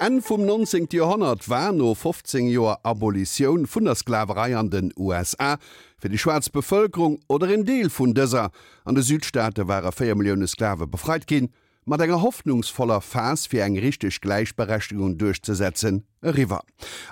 Enn vum 19. Joerhonnert war, no 15 Joer Abolitioun vun der Sklaverei an den USA, fir déi schwaarz Bevëlkerung, oder een Deel vun dëser, an de Südstaate ware 4 Millioune Sklave befreit ginn, mat enger hoffnungsvoller Phas fir eng richteg Gläichberechtegung duerchzesetzen, eriwwer.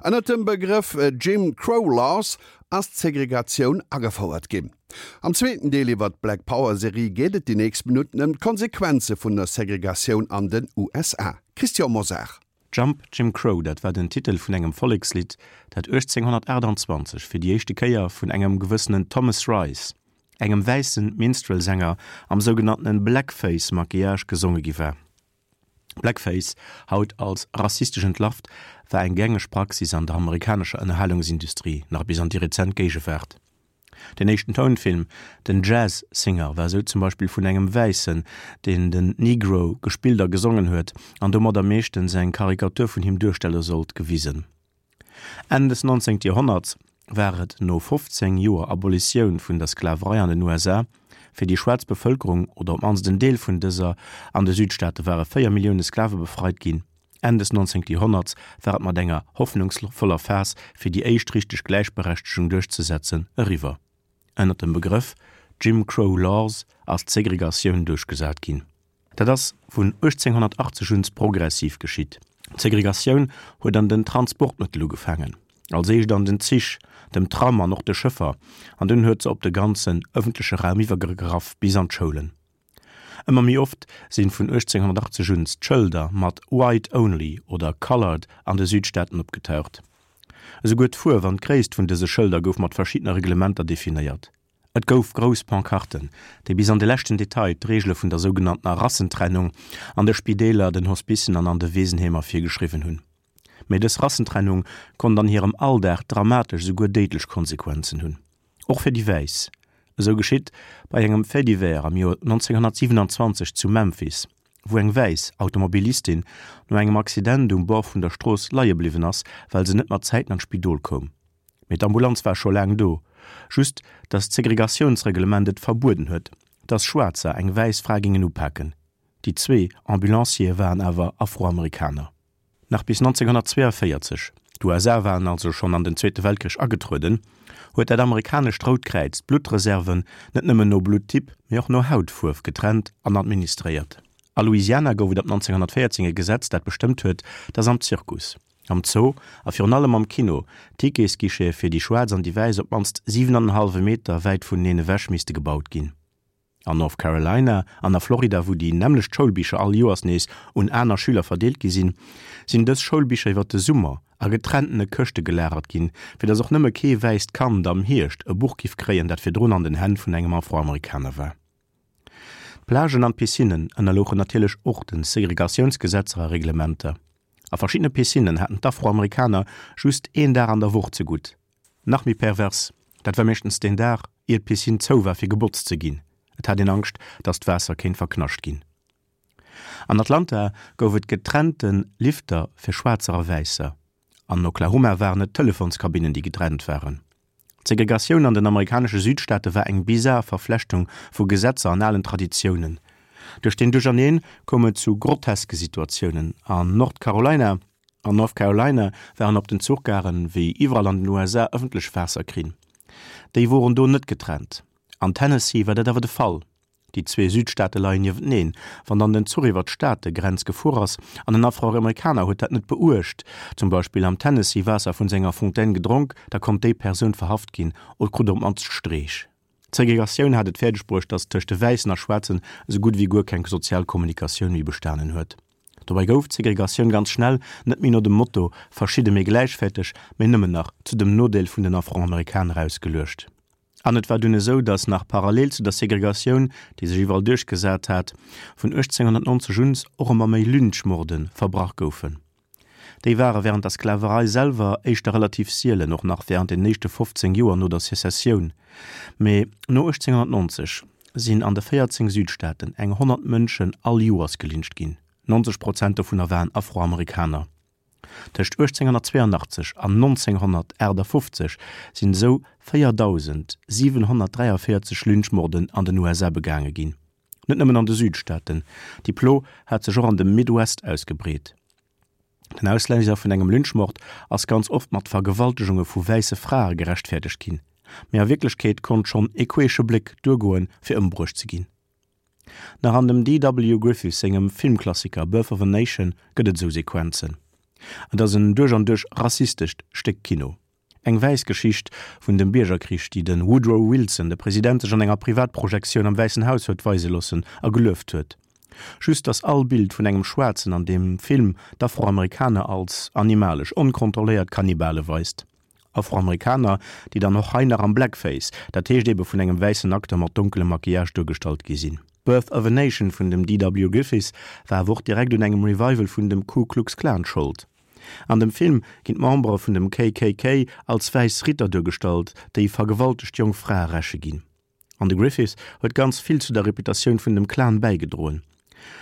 Ënnert dem Begrëff Jim Crow Laws ass d'Segregatioun agefouert ginn. Am zweeten Deel iwwer d'Black Power Serie geet et déi nächst Minutten ëm d'Konsequenze vun der Segregatioun an den USA. Christian Mosar. Jump Jim Crow, dat war den Titel vun engem Vollekslidd, dat 1828 fir déi éischte Kéier vun engem gewëssenen Thomas Rice, engem wäisse Minstrel-Sänger am sougenanntene Blackface-Maquillage gesonge gi war. Blackface, haut als rassistesch entlarvt, war eng gängeg Praxis an der amerikanescher Ënnerhalungsindustrie nach bis an déi rezent Géigewaart. Den éischten Tounfilm, den Jazz Singer, war sou zum Beispill vun engem Wäissen, deen den Negro gespillt a gesongen huet an domadder meeschtens eng Karikatur vun him duerstelle sollt, gewisen. Enn des 19. Joerhonnerts war et, no 15 Joer Abolitioun vun der Sklaverei an den USA, fir déi schwaarz Bevëlkerung, oder op d'mannst en Deel vun dëser, an de Südstaate ware 4 Millioune Sklave befreit ginn, Enn des 19. Joerhonnerts war et mat enger hoffnungsvoller Phas fir déi éischt richteg Gläichberechtegung duerchzesetzen eriwwer. Ënner dem Begrëff Jim Crow Laws ass d'Segregatioun duerchgesat ginn. Dat ass vun 1880 un progressiv geschitt. D'Segregatioun huet an den Transportmëttel ugefaangen, als éischt an den Zich, dem Tram an och de Schëffer, an dunn huet se op de ganzen ëffentleche Raum iwwergegraff bis an d'Schoulen. Ëmmer méi oft sinn vun 1880 un d'Schëlder mat White Only oder Colored an de Südstaaten opgetaucht. Esouguer d'Fuerf an d'Gréisst vun dëse Schëlder gouf mat verschiddene Reglementer definéiert. Et gouf grouss Pancarten, déi bis an de leschten Detail d'Reegele vun der sougenanntener Rassentrennung an de Spideeler, den Hospicen an an de Weesenheemer virgeschriwwen hunn. Mee dës Rassentrennung konnt an hirem Alldag dramatesch, esouguer déidlech Konsequenzen hunn. Och fir déi Wäiss. Esou geschitt bei engem Fait divers am Joer 1927 zu Memphis, wou eng wäiss Automobilistin no engem Accident um Bord vun der Strooss leie bliwwen ass, well se net mat Zäiten an d'Spidol koum. Mee d'Ambulanz war scho laang do. Just, dass d'Segregatiounsreglement et verbueden huet, dass Schwaarzer eng wäiss Fra gingen upaken. Déi zwee Ambulanciere waren awer Afroamerikaner. Nach bis 1942, d'USA waren also schonn an den Zweete Weltkrich agetrueden, huet dat amerikanescht Rout Kräiz d'Bluttreserven net nëmmen no Blutttyp, mee och no Hautfuerf getrennt an administréiert. A Louisiana gouf et ab 1914 e Gesetz, dat bestëmmt huet, dass am Zirkus, Am Zoo a virun allem am Kino Ticketsguichete fir déi Schwaarz an déi Wäiss op d'mannst 7 an en hallwe Meter wäit vuneneen ewech misste gebaut ginn. An North Carolina an a Florida, wou déi nämmlecht Schoulbicher all Joers nees un aner Schüler verdeelt gi sinn, sinn dës Schoulbicher iwwer de Summer a getrennene Këschte gelagert ginn, fir datt och nëmme kee wäisst Kand am Hierscht e Buch giff kréien, dat virdrun an den Hänn vun engem Afroamerikaner war. D'Plagen an d'Piscinnen ënnerlouchen natierlech och de Segregatiounsgesetzer a Reglementer. A verschiddene Piscinnen haten d'Afroamerikaner just een Dag an der Woch zegutt. Nach méi pervers, dat war meeschtens deen Dag, ier d'Piscine zou war fir gebotzt ze ginn. Et hat een Angscht, datt d'Waasser kéint verknascht ginn. An Atlanta gouf et getrennte Lifter fir Schwaarzer a Wäisser. An Oklahoma waren et d'Telefonskabinnen, déi getrennt waren. D'Segregatioun an den amerikanesche Südstaate war eng bizar Verflechtung vu Gesetzer an alen Traditiounen. Duerch deen Duercherneen koum et zu groteske Situatiounen. An Nord Carolina An North Carolina waren op den Zuchgaren, wéi iwwerall an den USA, ëffentlech Waasserkrinn. Déi woren do net getrennt. An Tennessee war dat awer de Fall. Déi zwee Südstaate leien niewenteneen. Wann dann den Zuch iwwer d'Staategrenz gefuer ass an en Afroamerikaner huet dat net beuecht, zum Beispill am Tennessee Waasser vun senger Fontaine gedronk, da konnt déi Persoun verhaft ginn oder krut op d'mannst Streech. D'Segregatioun hat et fäerdeg bruecht, datt tëscht de Wäissen a Schwaarzen esou gutt ewéi guer keng sozial Kommunikatioun méi bestanen huet. Dobäi gouf d'Segregatioun ganz schnell net méi no dem Motto verschidde mee gläichwäerteg, mee nëmmen nach zu dem Nodeel vun den Afroamerikaner ausgeluecht. An et war dunn esou, datt nach parallel zu der Segregatioun, déi sech iwwerall duerchgesat hat, vun 1890 un och ëmmer méi Lynchmorde verbrach goufen. Déi ware wärend der Sklaverei selwer éischter relativ sielen, och nach wärend den éischte 15 Joer no der Sezessioun. Mee no 1890 sinn an de 14 Südstaaten eng 100 Mënschen all Joers gelyncht ginn, 90 Prozent dovunner waren Afroamerikaner. Tëscht 1882 an 1958 sinn esou 4.743 Lynchmorden an den USA begaange ginn. Net nëmmen an de Südstaaten, déi Plo hat sech och an dem Midwest ausgebreet. Den Ausléiser vun engem Lynchmord ass ganz oft mat Vergewaltegunge vu wäisse Frae gerechtfäerdegt ginn, mee a Wierklechkeet konnt schonn e queesche Bléck duergoen, fir ëmbruecht ze ginn. Nach an dem DW. Griffith sengem Filmklassiker Birth of a Nation gëtt et esou Sequenzen. Et ass en duerch an duerch rassistescht Stéck Kino. Eng wäiss Geschicht vun dem Biergerkrich, déi de Woodrow Wilson, de President, sech an enger Privatprojektioun am Wäissen Haus huet weise loossen a gelueft huet. Just datt all Bild vun engem Schwaarzen an deem Film d'Afroamerikaner als animalesch, onkontrolléiert Kannibale weist. Afroamerikaner, déi dann och hei nach am Blackface, dat heescht ebe vun engem wäissen Acteur mat donkelem Maquillage duergestallt gi sinn. Birth of a Nation vun dem DW. Griffith war awer och direkt un engem Revival vun dem Ku Klux Klan Schold. An dem Film ginn d'Membere vun dem KKK als wäiss Ritter duergestallt, déi vergewaltegt jonk Frae räche ginn. An de Griffith huet ganz vill zu der Reputatioun vun dem Klan bäigedroen.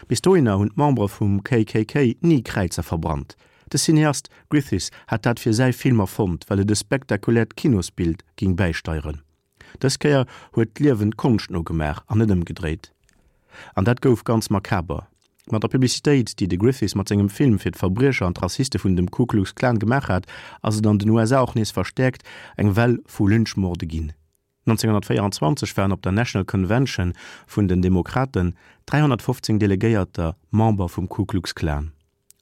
Bis dohinner hunn d'Membere vum KKK ni Kräizer verbrannt. De Cineast Griffith hat dat fir säi Film erfonnt, well et e spektakuläert Kinosbild géing bäisteieren. Dës Kéier huet d'Liewen d'Konscht nogemaach an net ëmgedréit. An dat gouf ganz makaber. Mat der Publicitéit, déi de Griffith mat sengem Film fir d'Verbriecher an d'Rassiste vun dem Ku Klux Klan gemaach hat, ass et an den USA och nees verstäerkt eng Well vu Lynchmorde ginn. 1924 waren op der National Convention vun den Demokraten 315 Delegéierter Member vum Ku Klux Klan.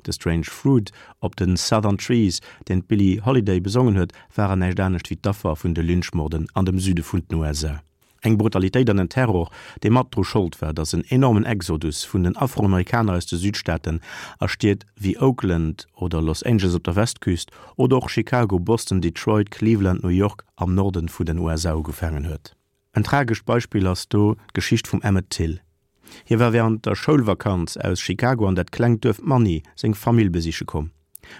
De Strange Fruit op de Southern Trees, deen d'Billie Holiday besongen huet, waren näischt anescht wéi d'Affer vun de Lynchmorden an dem Süde vun den USA. Eng Brutalitéit an en Terror, dee mat dru Schold war, datt en enormen Exodus vun den Afroamerikaner aus de Südstaaten a Stied wéi Oakland oder Los Angeles op der Westküst oder och Chicago, Boston, Detroit, Cleveland, New York am Norden vun den USA ugefaangen huet. En tragescht Beispill ass do d'Geschicht vum Emmett Till. Hie war wärend der Schoulvakanz aus Chicago an dat klengt Duerf Money seng Famill besiche komm.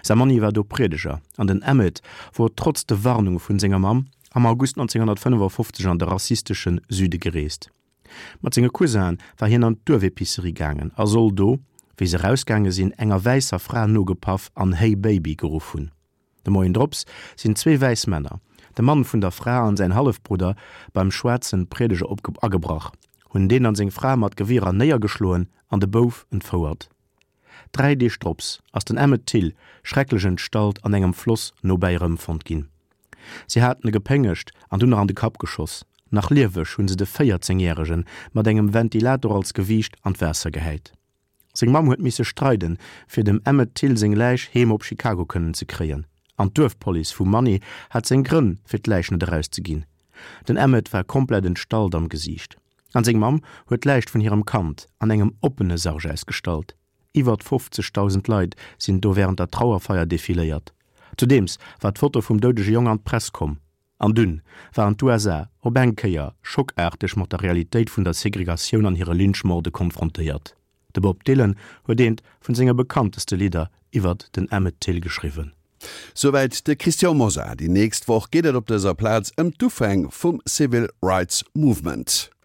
Säi Manni war do Priedeger an den Emmett wor trotz de Warnunge vun senger Mamm am August 1955 an de rassistesche Süde gereest. Mat senge Cousinë war hien an d'Duerfepicerie gaangen a soll do, wéi se erausgaange sinn, enger wäisser Fra nogepaff an Hey Baby geruff hunn. De Moien drops sinn zwee wäiss Männer, de Mann vun der Fra an säin Hallefbrudder, beim schwaarzen Priedeger agebrach, hunn deen an seng Fra mat Gewierer néiergeschloen an de Bouf entfouert. Dräi Deeg drops ass den Emmett Till schrecklech entstallt an engem Floss nobäi erëmfonnt ginn. Si haten e gepéngegt an dunn nach an de Kapp geschoss. Nach lieweg hunn se de 14 Järegen mat engem Ventilator als Gewiicht an d'Waasser gehäit. Seng Mamm huet misse streiden, fir dem Emmett Till seng Läich heem op Chicago kënnen ze kréien. An d'Duerfpolice vu Money hat seng Grënn, fir d'Läich net erauszeginn. Den Emmett war komplett entstallt am Gesiicht. An seng Mamm huet d'Läich vun hirem Kand an engem oppene Sarg ausgestallt. Iwwert 50.000 Leit sinn do wärend der Trauerfeier defiléiert. Zudeems war d'Foto vum doudege Jong an d'Press komm. An dunn waren d'USA op eng Kéier schockaarteg mat der Realitéit vun der Segregatioun an hire Lynchmorde konfrontéiert. De Bob Dylan huet eent vun senge bekannteste Lidder iwwert den Emmett Till geschriwwen. Souwäit de Christian Mosar. Déi nächst Woch geet et op dëser Plaz ëm d'Ufäng vum Civil Rights Movement.